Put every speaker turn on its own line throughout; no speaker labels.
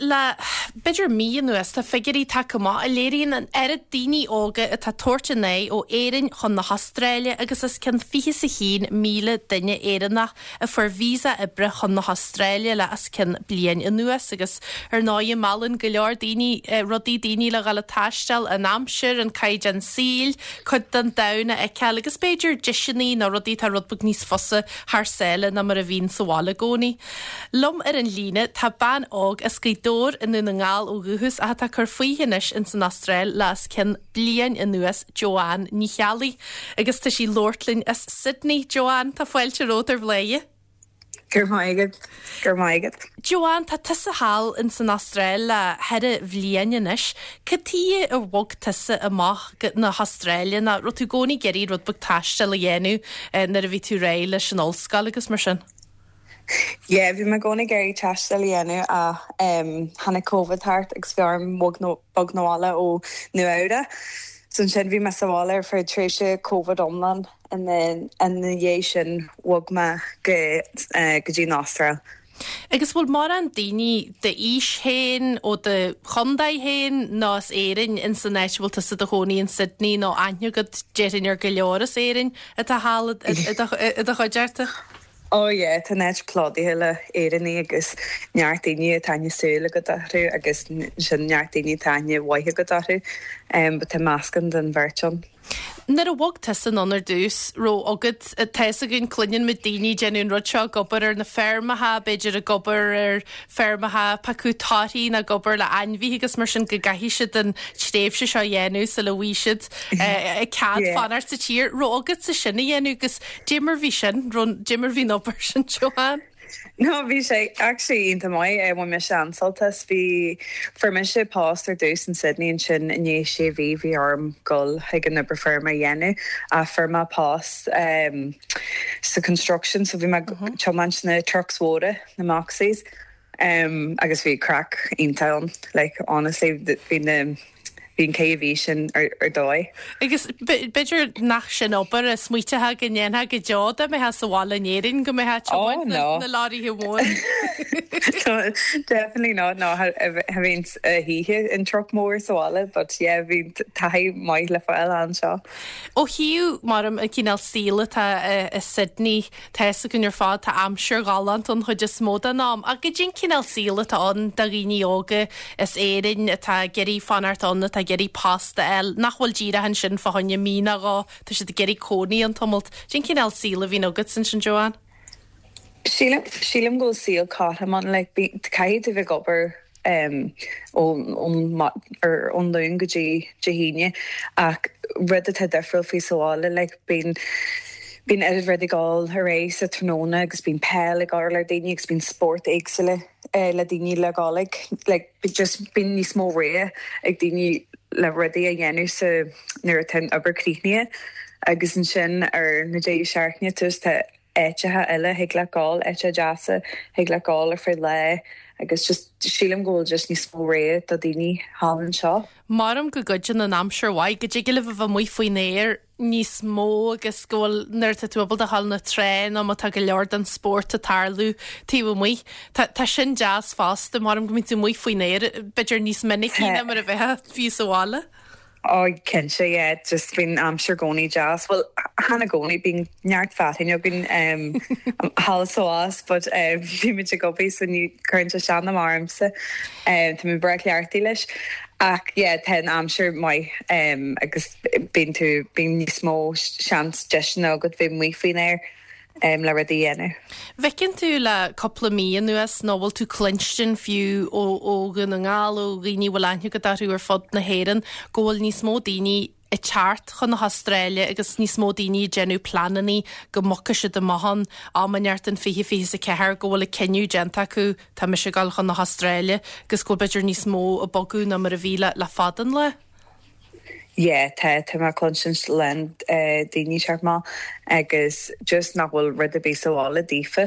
le b'fhéidir mí anuas tá figiúirí tagtha amach a léiríonn an oiread daoine óga atá ag tabhairt a n-aghaidh ó Éirinn chun na hAstráile agus os cionn 21,000 duine Éireannach a fuair visa oibre chun na hAstráile le os cionn bliain anuas agus ar ndóigh meallann go leor daoine rudaí daoine le dhul ag taisteal, an aimsir, an caighdeán saoil, cuid den domhan a fheiceáil agus b'fhéidir deiseanna nó rudaí atá rud beag níos fusa thar sáile ná mar a bhíonn sa bhaile i gcónaí. Liom ar an líne tá bean óg as Gaoth Dobhair i nDún na nGall ó dhúchas ach atá ag cur fúithi anois ins an Astráil le os cionn bliain anuas, Joanne Ní Cheallaigh. Agus tá sí ag labhairt linn as Sydney. Joanne, tá fáilte romhat ar Bhladhaire.
Go raibh maith agat. Go raibh maith agat.
Joanne, tá tusa thall ins an Astráil le ceithre bhliain anois. Cad tuige ar bhog tusa amach go na hAstráile nó raibh tú i gcónaí ag iarraidh rud beag taistil a dhéanamh nuair a bhí tú réidh leis an ollscoil agus mar sin?
Yeah, bhí mé i gcónaí ag iarraidh taisteal a dhéanamh ach tháinig Covid thart agus bhí orm bog 'na bhaile ó Nua Eabhrac. So ansin bhí mé sa bhaile ar feadh tréimhse Covid iomlán and then ina dhiaidh sin bhog mé go go dtí an Astráil.
Agus bhfuil mórán daoine d'aois féin, ó do chontae féin nó as Éirinn ins an áit a bhfuil tusa i do chónaí in Sydney nó aithne agat déarfainn ar go leor as Éirinn atá thall i do chuideachta?
Oh yeah, tá an áit plódaithe le Éireannaigh agus neart daoine atá aithne súl agat orthu agus ansin neart daoine atá aithne mhaith agat orthu. But tá meascán den bheirt ann.
Nuair a bhog tusa anonn ar dtús, raibh agat, tá fhios againn, cluineann muid daoine ag déanamh an rud seo, ag obair ar na feirmeacha, b'fhéidir ag obair ar feirmeacha ag piocadh torthaí nó ag obair le ainmhithe agus mar sin go gcaithfidh siad an tréimhse seo a dhéanamh sula bhfaighidh siad cead fanacht sa tír. Raibh agatsa sin a dhéanamh agus Dé mar bhí sin, dé mar bhí an obair sin, Joanne?
No, bhí sé actually iontach maith, bhain mise an-sult as. Bhí, fuair mise post ar dtús in Sydney ansin i ndiaidh sé mhí bhí orm dul chuig an obair feirme a dhéanamh ach fuair mé post sa construction so bhí mé ag tiomáint na trucks mhóra, na Moxies. Agus bhí craic iontach ann, like honestly bhí na, bhí an ceithre mhí sin ar ar dóigh.
Agus b'fhéidir nach sin obair a smaoiteofá go ndéanfá go deo dá mbeifeá sa bhaile in Éirinn, go mbeifeá ag tiomáint na na leoraithe móra.
No, definitely not, no, cha bhínn a hoíche in truck mór sa bhaile but yeah bhí taithí maith le fáil anseo.
Ó thaobh mar an cineál saoil atá i Sydney, Tá fhios againn ar fad, tá aimsir ghalánta an chuid is mó den am, ach goidé an cineál saoil atá ann do dhaoine óga as Éirinn atá ag iarraidh fanacht ann, atá ag iarraidh post a fháil, nach bhfuil díreach ansin fá choinne mí nó dhó, tá siad ag iarraidh cónaí ann tamalt. Cén cineál saoil a bhíonn agat ansin, Joanne?
Sílim, sílim go bhfuil saol cothrom ann, like, caithfidh tú bheith ag obair ón Luan go dtí Dé hAoine ach rud atá difriúil faoi sa bhaile like bíonn bíonn oiread rudaí ag dul ar aghaidh sa tráthnóna agus bíonn peil ag dul ar daoine agus bíonn spórt éagsúla le daoine le dhul ag like just bíonn níos mó rogha ag daoine le rudaí a dhéanamh sa nuair atá an obair críochnaithe agus ansin ar na deireadh seachtaine tá áiteacha eile thig leat gabháil, áiteacha deasa thig leat gabháil ar feadh lae agus just sílim go bhfuil just níos mó rogha do daoine thall anseo.
Maram go gcuidíonn an aimsir mhaith, go dtig libh a bheith amuigh faoin aer níos mó agus go bhfuil nuair atá tú ábalta a ghabháil na trá nó má tá go leor den spórt ag tarlú taobh amuigh. Tá tá sin deas fosta, maram go mbíonn tú amuigh faoin aer b'fhéidir níos minicí ná mar a bheifeá fiú sa bhaile.
Oh cinnte yeah just bíonn aimsir i gcónaí deas, bhuel chan i gcónaí, bíonn neart fearthainn againn um thall is abhus but um bímid ag obair so ní cuireann sé isteach ná amach ormsa um tá mé breá cleachtaithe leis ach yeah tá an aimsir maith um agus bíonn tú bíonn níos mó seans deiseanna agat bheith amuigh faoin aer. le rudaí a dhéanamh.
Bhfeiceann tú le cúpla mí anuas, nó bhfuil tú cluinstin fiú ó ó Dhún na nGall, ó dhaoine a bhfuil aithne agat orthu ar fud na hÉireann, go bhfuil níos mó daoine ag teacht chun na hAstráile agus níos mó daoine ag déanamh pleanannaí go mbogfaidh siad amach ann am inteacht in 2024, go bhfuil an cinneadh déanta acu, tá mise ag dul chun na hAstráile, agus go bhfuil b'fhéidir níos mó ag bogadh ná mar a bhí le le fada an lá?
Yeah tá, tá mé ag cluinsint a lán daoine teacht amach agus just nach bhfuil rud ar bith sa bhaile daofa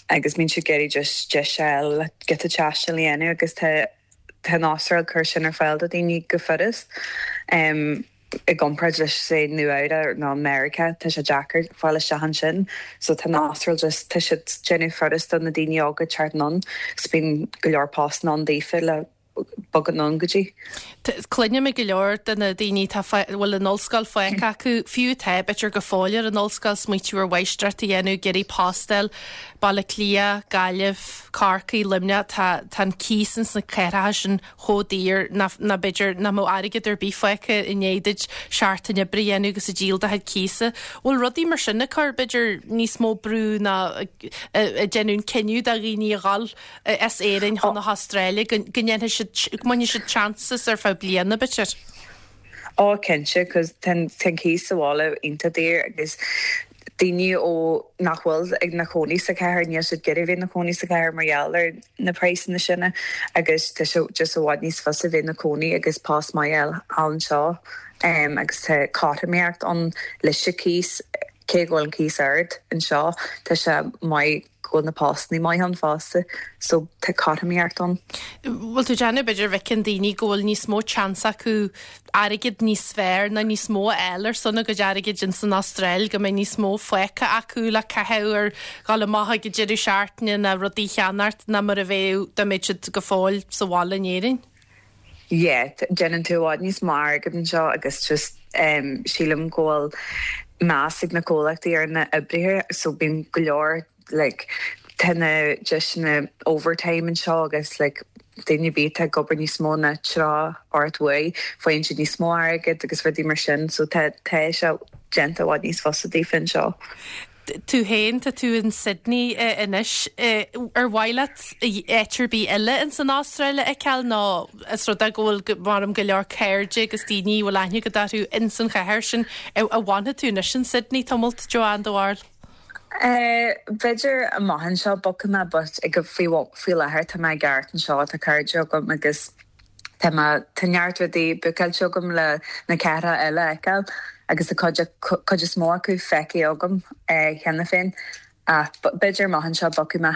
agus bíonn siad ag iarraidh just deis a fháil le giota taistil a dhéanamh agus tá tá an Astráil ag cur sin ar fáil do daoine go furast. i gcomparáid leis say Nua Eabhrac nó Meiriceá tá sé deacair fáil isteach ansin so tá an Astráil just tá siad déanamh furast do na daoine óga teacht anonn agus bíonn go leor postanna ann daofa le bogadh anonn go dtí.
Cluinim ag go leor de na daoine atá a bhfuil an ollscoil fágtha acu, fiú atá b'fhéidir go fóill ar an ollscoil, smaoitiú ar mháistreacht a dhéanamh, ag iarraidh post a fháil, Baile Átha Cliath, Gaillimh, Corcaigh, Luimneach, tá tá an cíos ins na cathracha sin chomh daor nach nach b'fhéidir nach mbeadh airgead ar bith fágtha i ndiaidh duit seachtain oibre a dhéanamh agus ag díol do chuid cíosa. Bhfuil rudaí mar sin ag cur b'fhéidir níos mó brú ná ag déanamh an cinneadh do dhaoine a dhul as Éirinn chun na hAstráile, go ndéanfaidh siad, go mbainfidh siad chances ar feadh bliana, b'fhéidir.
Ó, cinnte, 'cause tá an cíos sa bhaile iontach daor agus daoine ó nach bhfuil ina chónaí sa chathair, níl siad ag iarraidh bheith ina chónaí sa chathair mar gheall ar na praghsanna sin agus tá sé just i bhfad níos fusa bheith ina cónaí agus post maith a fháil anseo agus tá cothromaíocht ann leis an cíos, cé go bhfuil an cíos ard anseo, tá sé maith. go bhfuil na postannaí maith ann fosta so tá cothromaíocht ann.
Bhfuil tú ag déanamh b'fhéidir bhfeiceann daoine go bhfuil níos mó chance acu airgead níos fearr nó níos mó a fháil ar son a gcuid airgid ins an Astráil, go mbeidh níos mó fágtha acu le caitheamh ar dhul amach ag an deireadh seachtaine nó rudaí a cheannacht ná mar a bheadh dá mbeadh siad go fóill sa bhaile in Éirinn?
Yeah, déanann tú i bhfad níos mó airgead anseo agus just sílim go bhfuil meas ag na comhlachtaí ar na oibrithe so bíonn go leor like tá na deiseanna overtime anseo agus like daoine ar bith atá ag obair níos mó ná 38 uair faigheann siad níos mó airgead agus rudaí mar sin so tá tá sé déanta i bhfad níos fusa daofa anseo.
Tú féin, tá tú in Sydney anois. Ar mhaith leat áit ar bith eile ins an Astráil a fheiceáil nó is rud é go bhfuil, measaim, go leor cairde agus daoine a bhfuil aithne agat orthu ins an chathair sin. An bhfanfaidh tú anois in Sydney tamalt, Joanne, do bharúil?
B'fhéidir amach anseo bogfaidh mé but ag faoi faoi láthair tá mé i gceart anseo, tá cairde agam agus Tá mé, tá neart rudaí bookáilte agam le na cathracha eile a fheiceáil agus tá cuid, cuid is mó acu feicthe agam cheana féin ach b'fhéidir amach anseo bogfaidh mé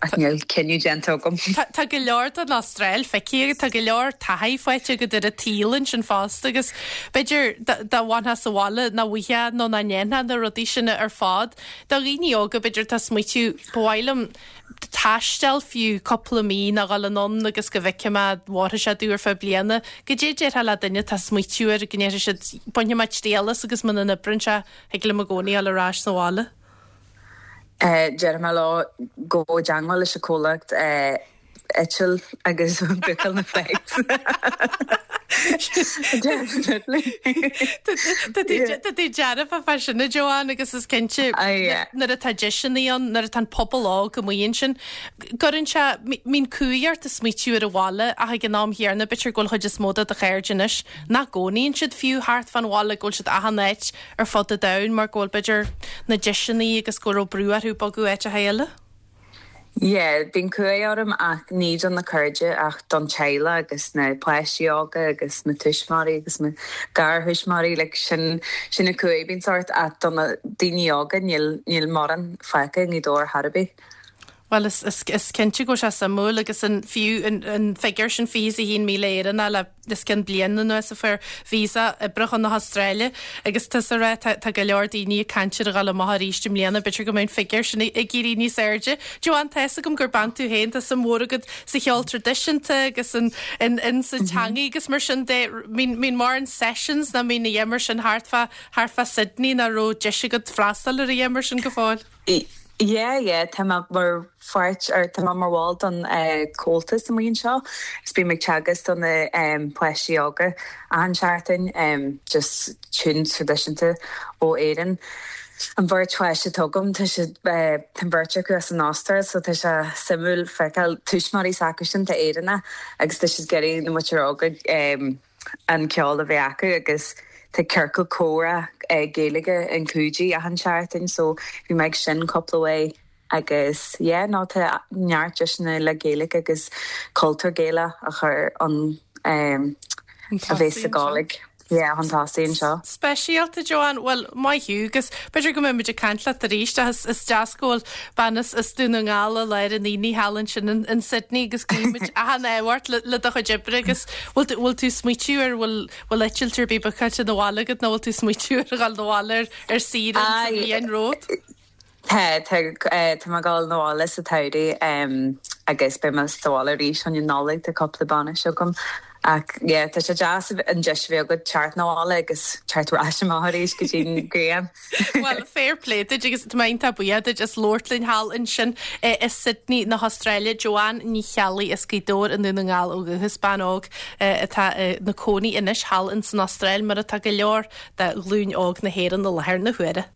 ach níl cinneadh déanta agam.
Tá go leor den Astráil feicthe agat, tá go leor taithí faighte agat ar an tsaol ansin fosta agus b'fhéidir dá bhfanfá sa bhaile nach bhfaighfeá nó nach ndéanfá na rudaí sin ar fad. Do dhaoine óga b'fhéidir atá ag smaoitiú, ba mhaith liom taisteal fiú cúpla mí nó dhul anonn agus go bhfeicfidh mé an bhfóirfidh sé domh ar feadh bliana. Goidé a déarfá le duine atá ag smaoitiú air go ndéarfaidh siad bainfidh mé triail as agus muna n-oibreann sé thig liom i gcónaí dhul ar ais sa bhaile.
Déarfaidh mé leo gabh i dteangmháil leis an comhlacht eitil agus bookáil na flights.
Definitely. Tá tú dearfa fá sin a Joanne agus is cinnte nuair atá deiseanna ann, nuair atá an pobal óg amuigh ansin, gcuireann sé, mbíonn cumhaidh ort ag smaoitiú ar an bhaile ach ag an am chéanna b'fhéidir go bhfuil chuid is mó de do chairde anois nach gcónaíonn siad fiú thart fán bhaile, go bhfuil siad achan áit ar fud an domhain mar go bhfuil b'fhéidir na deiseanna agus go raibh brú orthu bogadh áiteacha eile.
Yeah, bíonn cumhaidh orm ach ní do na cairde ach don teaghlach agus na páistí óga agus na tuismitheoirí agus na garthuismitheoirí, like sin, sin an cumhaidh a bhíonns ort ach do na daoine óga níl, níl mórán fágtha i nGaoth Dobhair chor ar bith.
Bhuel is, is, is cinnte go bhfuil sé suimiúil agus an, fiú an, an figiúr sin 21,000 Éireannach le os cionn bliain anuas a fuair visa oibre chun na hAstráile agus tusa ag rá tá go leor daoine ag caint ar a dhul amach arís i mbliana, b'fhéidir go mbeidh an figiúr sin ag éirí níos airde. Joanne, tá fhios agam gur bean tú féin, tá suim mhór agat sa cheol traidisiúnta agus in, in, in sa teangaidh agus mar sin de, mbíonn mórán sessions nó mbíonn a dhath mar sin thart fá, thart fá Sydney nó raibh deis agat freastal ar a dhath mar sin go fóill?
Yeah, yeah, tá mé mar pháirt, or tá mé mar bhall don Comhaltas amuigh anseo agus bím ag teagasc do na páistí óga achan seachtain, just tunes traidisiúnta ó Éirinn. An bheirt pháiste atá agam, tá siad, tá an bheirt acu as an Astráil so tá sé suimiúil feiceáil tuismitheoirí s'acusan atá Éireannach agus tá siad ag iarraidh na muintir óga an ceol a bheith acu agus tá ciorcal comhrá Gaeilge in Coogee achan seachtain so bhí mé ag sin cúpla uair agus yeah no tá neart deiseanna le Gaeilge agus cultúr Gaelach a chur ann a bheith sa Gàidhlig. Yeah, chun tosaigh anseo.
Speisialta, Joanne. Bhuel, maith thú agus b'fhéidir go mbeidh muid ag caint leat arís ach is deas go bhfuil bean as Dún na nGall i lár an aonaigh thall ansin in Sydney agus guímid achan ádh ort le do chuid oibre agus bhfuil tú bhfuil tú ag smaoitiú ar bhfuil bhfuil eitilt ar bith bookáilte 'na bhaile agat nó bhfuil tú ag smaoitiú ar dhul 'na bhaile ar ar saoire sa bhliain romhat?
Tá, tá, tá mé ag dul 'na bhaile sa tsamhradh agus beidh mé sa bhaile arís chun an Nollaig, tá cúpla bainis agam. Ach yeah, tá sé deas an deis a bheith agat teacht 'na bhaile agus teacht ar ais amach arís go dtí an ghrian.
Bhuel, fair play duit agus tá mé iontach buíoch duit as labhairt linn thall ansin i Sydney na hAstráile. Joanne Ní Cheallaigh as Gaoth Dobhair i nDún na nGall ó dhúchas, bean óg atá ina cónaí anois thall in san Astráil mar atá go leor de ghlúin óg na hÉireann i láthair na huaire.